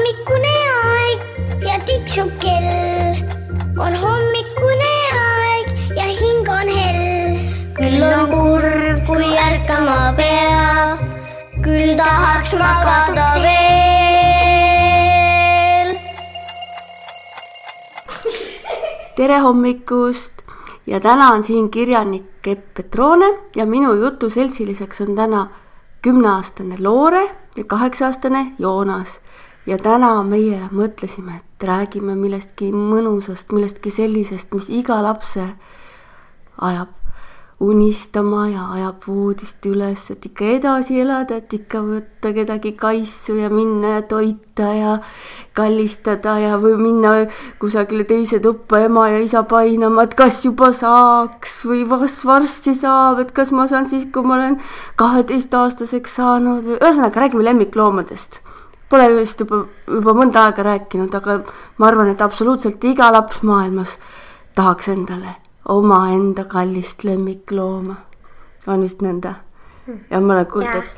hommikune aeg ja tiksub kell. On hommikune aeg ja hing on hell. Küll on kurb, kui ärkama pea, küll tahaks magada veel. Tere hommikust ja täna on siin kirjanik Epp Petrone ja minu jutu seltsiliseks on täna 10-aastane Loore ja 8-aastane Joonas. Ja täna meie mõtlesime, et räägime millestki mõnusast, millestki sellisest, mis iga lapse ajab unistama ja ajab voodist üles, et ikka edasi elada, et ikka võtta kedagi kaissu ja minna ja toita ja kallistada ja või minna kusagile teise tuppa ema ja isa painama, et kas juba saaks või varsti saab, et kas ma saan siis, kui ma olen 12-aastaseks saanud või ühesõnaga räägime lemmikloomadest. Pole just juba mõnda aega rääkinud, aga ma arvan, et absoluutselt iga laps maailmas tahaks endale oma enda kallist lemmiklooma. On vist nõnda? Ja ma olen kuulnud, et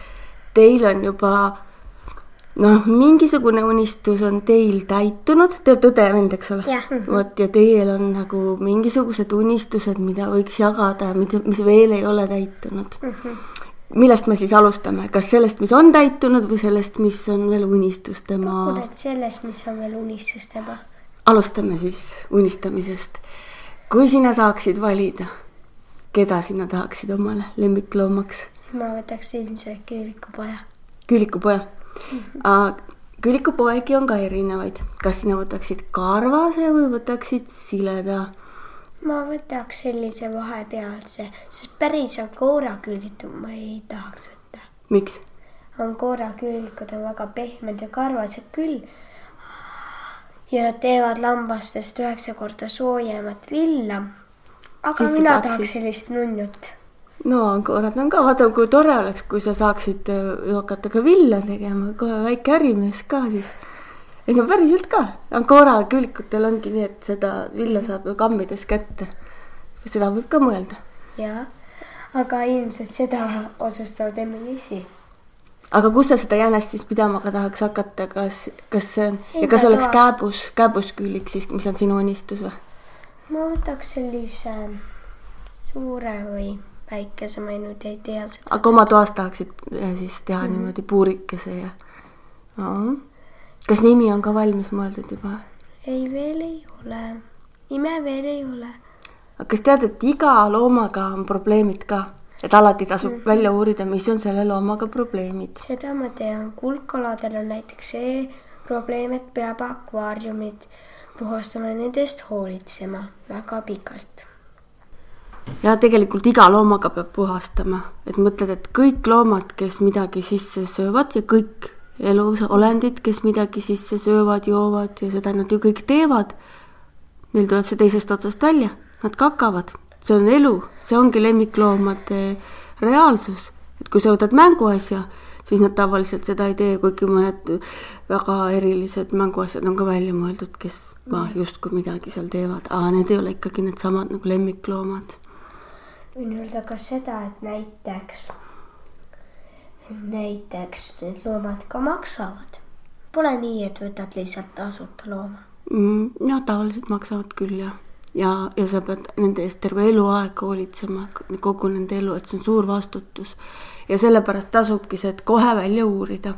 teil on juba mingisugune unistus on teil täitunud. Te olete õde vend, eks ole? Ja teil on nagu mingisugused unistused, mida võiks jagada ja mis veel ei ole täitunud. Millest me siis alustame? Kas sellest, mis on täitunud või sellest, mis on veel unistustema? Kukunet sellest, mis on veel unistustema. Alustame siis unistamisest. Kui sina saaksid valida, keda sina tahaksid omale lemmikloomaks? Siis ma võtaks ilmselt küülikupoja. Küülikupoja? Küülikupoegi on ka erinevaid. Kas sina võtaksid karvase või võtaksid sileda? Ma võtaks sellise vahepealse, sest päris angooraküülikud ma ei tahaks võtta. Miks? Angooraküülikud on väga pehmed ja karvased küll. Ja nad teevad lambastest 9 korda soojemat villa. Aga siis mina tahaks sellist nunnut. No angoorad on ka, vaata kui tore oleks, kui sa saaksid hakata ka villa tegema, kohe väike ärimees ka siis. Ei no päriselt ka. Angoora küülikutel ongi nii, et seda villa saab ju kammides kätte. Seda võib ka mõelda. Jaa, aga ilmselt seda osustavad emme-isi. Aga kus sa seda jänest siis pidama ka tahaks hakata? Kas oleks kääbusküülik siis, mis on sinu unistus või? Ma võtaks sellise suure või väikese, ma nüüd ei tea seda. Aga oma toas tahaksid siis teha niimoodi puurikese ja... Kas nimi on ka valmis mõeldud juba? Ei, veel ei ole. Nime veel ei ole. Aga kas tead, et iga loomaga on probleemid ka? Et alati tasub välja uurida, mis on selle loomaga probleemid? Seda ma tean. Kulkaladel on näiteks see probleem, et peab akvaariumid puhastama ja nendest hoolitsema väga pikalt. Ja tegelikult iga loomaga peab puhastama. Et mõtled, et kõik loomad, kes midagi sisse söövad ja kõik elus olendid, kes midagi sisse söövad, joovad ja seda nad ju kõik teevad. Neil tuleb see teisest otsast välja. Nad kakavad. See on elu. See ongi lemmikloomade reaalsus. Et kui sa võtad mänguasja, siis nad tavaliselt seda ei tee, kuigi mõned väga erilised mänguasjad on ka välja mõeldud, kes just kui midagi seal teevad. Aga need ei ole ikkagi need samad nagu lemmikloomad. Võin öelda ka seda, et näiteks need loomad ka maksavad. Pole nii, et võtad lihtsalt tasuta looma. Ja tavaliselt maksavad küll ja sa pead nende eest terve eluaeg hoolitsema, kogu nende elu, et see on suur vastutus. Ja sellepärast tasubki see, et kohe välja uurida.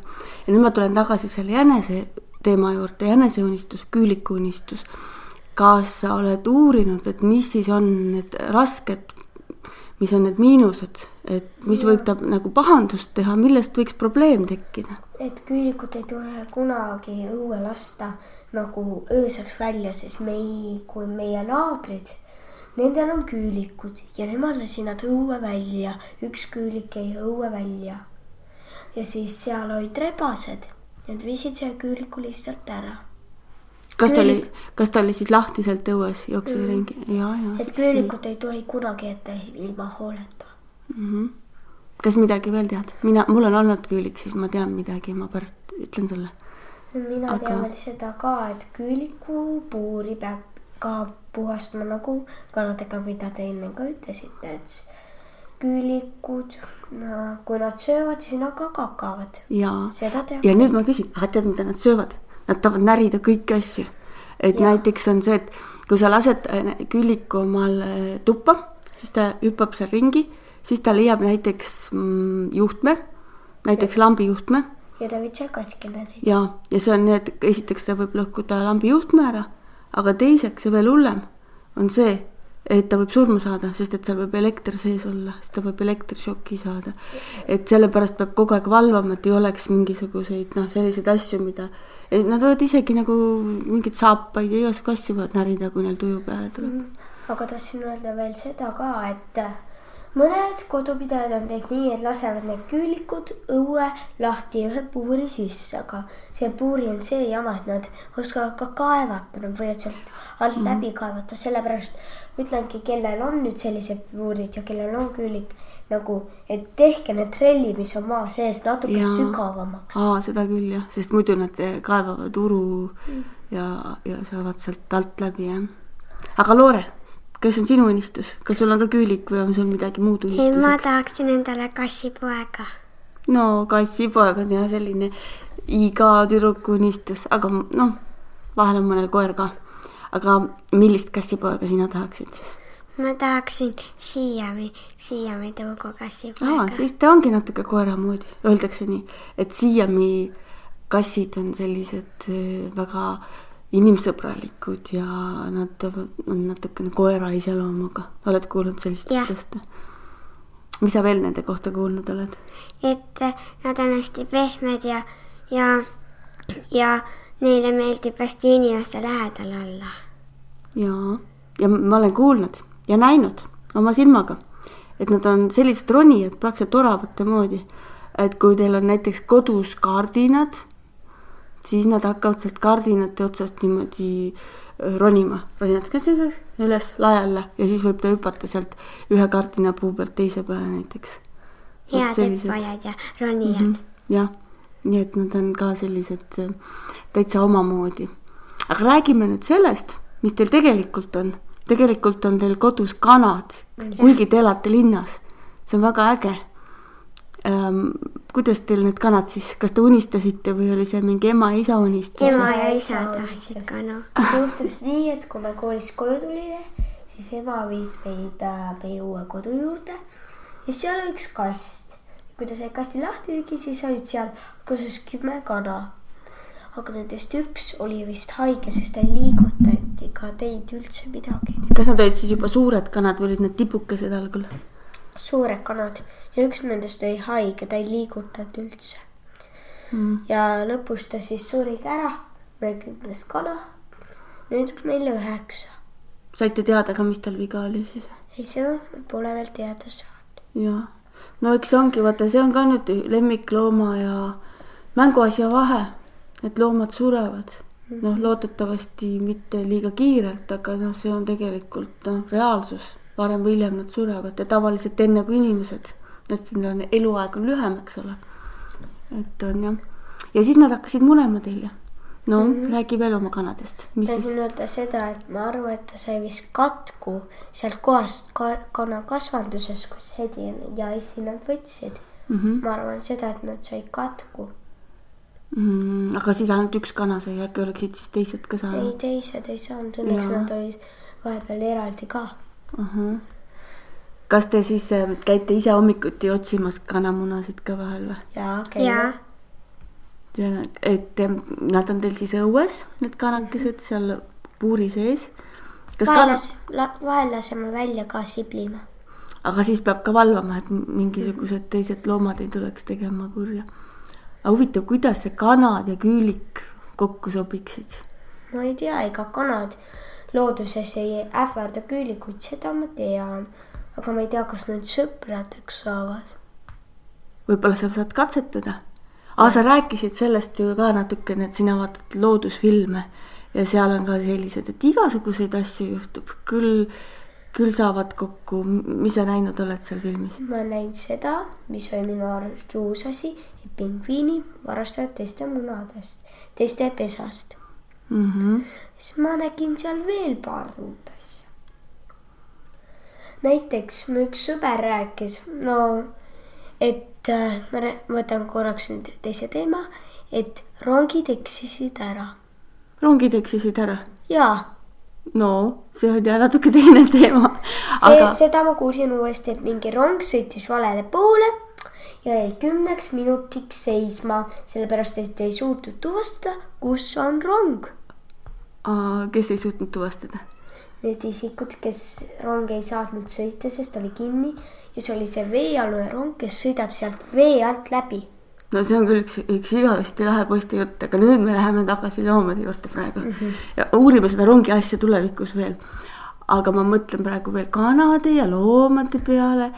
Ja nüüd ma tulen tagasi selle jänese teema juurde, jäneseunistus, küülikuunistus. Kas sa oled uurinud, et mis siis on need rasked, mis on need miinused, et mis võib ta nagu pahandust teha, millest võiks probleem tekkida? Et küülikud ei tule kunagi õue lasta nagu ööseks välja, sest kui meie naabrid, nendel on küülikud ja nemad lasi nad õue välja. Üks küülik jäi õue välja. Ja siis seal olid rebased ja nad viisid selle küüliku lihtsalt ära. Kas ta oli siis lahtiselt õues, jooksis ringi? Et küülikud ei tohi kunagi ette ilma hooleta. Kas midagi veel tead? Mul on olnud küülik, siis ma tean midagi, ma pärast ütlen sulle. Mina tean veel seda ka, et küüliku puuri peab ka puhastama nagu kanadega, mida te enne ka ütlesite, et küülikud, kui nad söövad, siis nad ka kakavad. Ja nüüd ma küsin, tead, mida nad söövad? nad tahavad närida kõiki asju. Et näiteks on see, et kui sa lased küüliku omal tuppa, siis ta hüppab seal ringi, siis ta leiab näiteks juhtme, näiteks lambi juhtme. Ja ta võib see katki närida. Ja see on nii, et esiteks ta võib lõhkuda lambi juhtme ära, aga teiseks ja veel hullem on see, et ta võib surma saada, sest et seal võib elekter sees olla, sest ta võib elektrišoki saada. Et sellepärast peab kogu aeg valvama, et ei oleks mingisuguseid selliseid asju, mida nad võivad isegi nagu mingid saapaid ja igasugu asju võivad närida, kui neil tuju peale tuleb. Aga tahtsin öelda veel seda ka, et mõned kodupidajad on teinud nii, et lasevad need küülikud õue lahti ühe puuri sisse, aga see puuri on see jama, et nad oskavad ka kaevata, nad võivad sealt alt läbi kaevata, sellepärast ütlengi, kellel on nüüd sellised puurid ja kellel on küülik, nagu, et tehke need trelli, mis on maa sees natuke sügavamaks. Seda küll jah, sest muidu nad kaevavad uru ja saavad sealt alt läbi. Jah. Aga Loore, kes on sinu unistus? Kas sul on ka küülik või on sul midagi muud unistuseks? Ma tahaksin endale kassipoega. No kassipoeg on jah selline iga tüdruku unistus, aga vahel on mõnel koer ka. Aga millist kassipoega sina tahaksid siis? Ma tahaksin Siami tõugu kassipoega. Siis ta ongi natuke koera moodi. Öeldakse nii, et Siami kassid on sellised väga inimsõbralikud ja nad on natukene koera iseloomuga. Oled kuulnud sellist ütlest? Mis sa veel nende kohta kuulnud oled? Et nad on hästi pehmed ja neile meeldib hästi inimeste lähedal olla. Ja ma olen kuulnud ja näinud oma silmaga, et nad on sellised ronijad praktiliselt oravate moodi, et kui teil on näiteks kodus kardinad, siis nad hakkavad sealt kardinate otsast niimoodi ronima. Ronijad üles laialla ja siis võib ta hüpata sealt ühe kardina puu pealt teise peale näiteks. Head hüppajad ja ronijad. Jah, nii et nad on ka sellised täitsa omamoodi. Aga räägime nüüd sellest, mis teil tegelikult on. Tegelikult on teil kodus kanad, kuigi te elate linnas. See on väga äge. Kuidas teil need kanad siis? Kas te unistasite või oli see mingi ema ja isa unistus? Ema ja isa tahtsid kana. Juhtus nii, et kui me koolis koju tulime, siis ema viis meid meie uue kodu juurde ja seal oli üks kast. Kui ta sai kasti lahti tegi, siis olid seal kusas 10 kana. Aga nendest üks oli vist haige, sest ta ei liigutanud ega teinud üldse midagi. Kas nad olid siis juba suured kanad või olid need tibukesed algul? Suured kanad ja üks nendest oli haige, ta ei liigutanud üldse. Ja lõpus ta siis surigi ära, meil 10 kana, nüüd meil 9. Saite teada ka, mis tal viga oli siis? Ei, see pole veel teada saanud. Jaa, no eks ongi, vaata, see on ka nüüd lemmiklooma ja mänguasja vahe. Et loomad surevad. Loodetavasti mitte liiga kiirelt, aga see on tegelikult reaalsus. Varem või hiljem nad surevad ja tavaliselt enne kui inimesed. Eluaeg on lühem, eks ole. Et on jah. Ja siis nad hakkasid munema teil. Räägi veel oma kanadest. Tahtsin öelda seda, et ma arvan, et ta sai vist katku sealt kohast kana kasvanduses, kus Hedi ja Issi nad võtsid. Ma arvan seda, et nad sai katku. Aga siis ainult üks kana sai, äkki oleksid siis teised ka saanud? Ei, teised ei saanud, õnneks nad olid vahepeal eraldi ka. Kas te siis käite ise hommikuti otsimas kanamunasid ka vahel või? Jaa, käime. Et nad on teil siis õues, need kanakesed seal puuri sees? Vahel laseme välja ka siblima. Aga siis peab ka valvama, et mingisugused teised loomad ei tuleks tegema kurja. Aga huvitav, kuidas see kanad ja küülik kokku sobiksid? Ma ei tea, ega kanad looduses ei ähvarda küülikuid, seda ma tean. Aga ma ei tea, kas need sõpradeks saavad. Võib-olla sa saad katsetada. Sa rääkisid sellest ju ka natukene, et sina vaatad loodusfilme ja seal on ka sellised, et igasuguseid asju juhtub. Küll saavad kokku. Mis sa näinud oled seal filmis? Ma näin seda, mis oli minu arust uus asi, et pingviini varastavad teiste munadest, teiste pesast. Siis ma nägin seal veel paar uut asja. Näiteks mu üks sõber rääkis, et ma võtan korraks nüüd teise teema, et rongid eksisid ära. rongid eksisid ära? jaa. No, see on ja natuke teine teema. Seda ma kuulsin uuesti, et mingi rong sõitis valele poole ja jäi 10 minutiks seisma, sellepärast et ei suutnud tuvastada, kus on rong. Kes ei suutnud tuvastada? Need isikud, kes rong ei saatnud sõita, sest oli kinni ja see oli see veealune rong, kes sõidab sealt vee alt läbi. No see on küll üks igavesti lahe poiste jutt, aga nüüd me läheme tagasi loomade juurde praegu. Ja uurime seda rongi asja tulevikus veel. Aga ma mõtlen praegu veel kanade ja loomade peale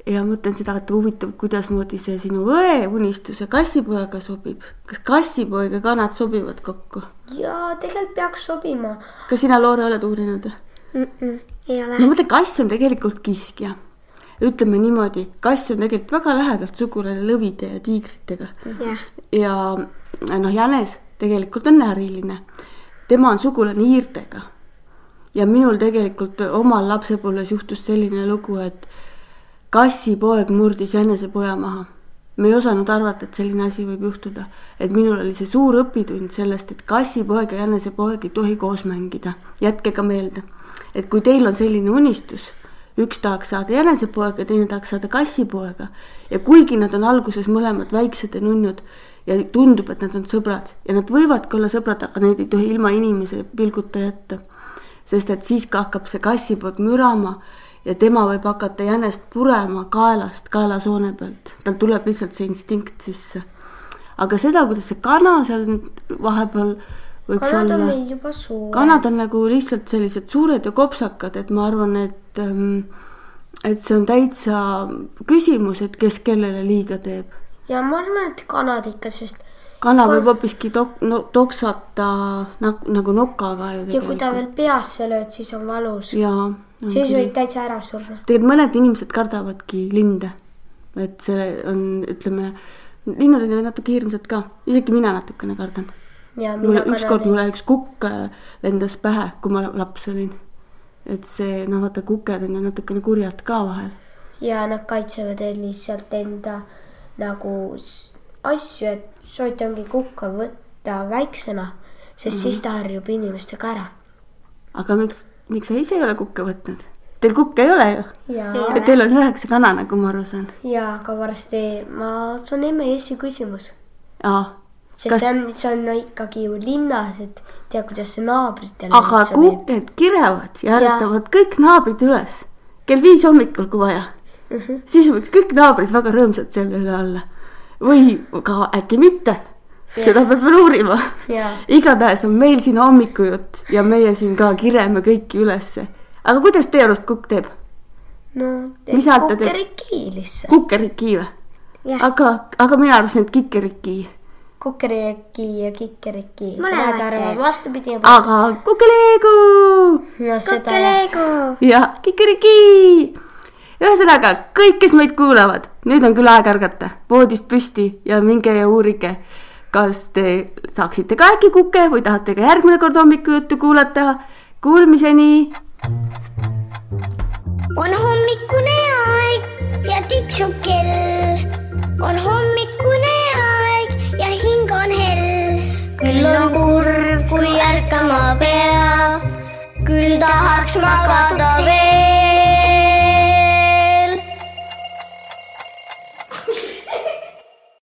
ja mõtlen seda, et huvitav, kuidas moodi see sinu õe unistus ja kassipoega sobib. Kas kassipoeg ja kanad sobivad kokku? Jaa, tegelikult peaks sobima. Kas sina, Loore, oled uurinud? Ei ole. Ma mõtlen, kass on tegelikult kiskja. Ütleme niimoodi, kass on tegelikult väga lähedalt sugulane lõvide ja tiigritega. Ja jänes tegelikult on näriline. Tema on sugulane hiirtega. Ja minul tegelikult omal lapsepõlves juhtus selline lugu, et kassipoeg murdis jänese poja maha. Me ei osanud arvata, et selline asi võib juhtuda. Et minul oli see suur õpitund sellest, et kassipoeg ja jänese poeg ei tohi koos mängida. Jätke ka meelde, et kui teil on selline unistus, üks tahaks saada jänesepoega, teine tahaks saada kassipoega. Ja kuigi nad on alguses mõlemad väiksed ja nunnud ja tundub, et nad on sõbrad ja nad võivadki olla sõbrad, aga neid ei tohi ilma inimese pilguta jätta. Sest et siis ka hakkab see kassipoeg mürama ja tema võib hakata jänest purema kaelast, kaelasoone pealt. Tal tuleb lihtsalt see instinkt sisse. Aga seda, kuidas see kana seal vahepeal võiks kanad olla. On meil juba suured. Kanad on nagu lihtsalt sellised suured ja kopsakad, et ma arvan, et see on täitsa küsimus, et kes kellele liiga teeb. Ja ma arvan, et kanad ikka, sest kana võib hoopiski toksata nagu nokaga. Ja kui ta veel peasse lööd, siis on valus. Jaa. Siis võib täitsa ära surra. Tegelikult mõned inimesed kardavadki linde. Et see on, ütleme, linnud on natuke hirmsad ka. Isegi mina natukene kardan. Ükskord mulle üks kukk lendas pähe, kui ma laps olin. Et see, vaata, kuked on natukene kurjad ka vahel. Ja nad kaitsevad lihtsalt enda nagu asju, et sooitangi kukka võtta väiksena, sest siis ta harjub inimestega ära. Aga miks sa ise ei ole kukke võtnud? Teil kukke ei ole ju? Ja teil on 9 kana, nagu ma aru saan. Ja, aga varsti see on emme Eesti küsimus. Sest see on ikkagi ju linnas, et tea, kuidas see naabritel. Aga kuked kirevad ja äretavad kõik naabrid üles. Kell 5 hommikul, kui vaja. Siis võiks kõik naabrid väga rõõmsad selle üle olla. Või ka äkki mitte. Seda peab veel uurima. Igatahes on meil siin hommikujutt ja meie siin ka kireme kõiki ülesse. Aga kuidas teie arust kukk teeb? No, kukerikii lihtsalt. Kukerikii või? Aga mina arvasin, et kikerikii. Kukerikii ja kikerikii. Mõlemad arvavad vastupidi. Aga kukeleegu! Kukeleegu! Ja kikerikii! Ühesõnaga, kõik, kes meid kuulavad, nüüd on küll aeg ärgata, voodist püsti ja minge ja uurige, kas te saaksite ka äkki kuke või tahate ka järgmine kord hommikujuttu kuulata. Kuulmiseni! On hommikune aeg ja tiksub kell. On hommikune aeg ja hing on hell. Küll on kurb, kui ärkama pea. Küll tahaks magada veel.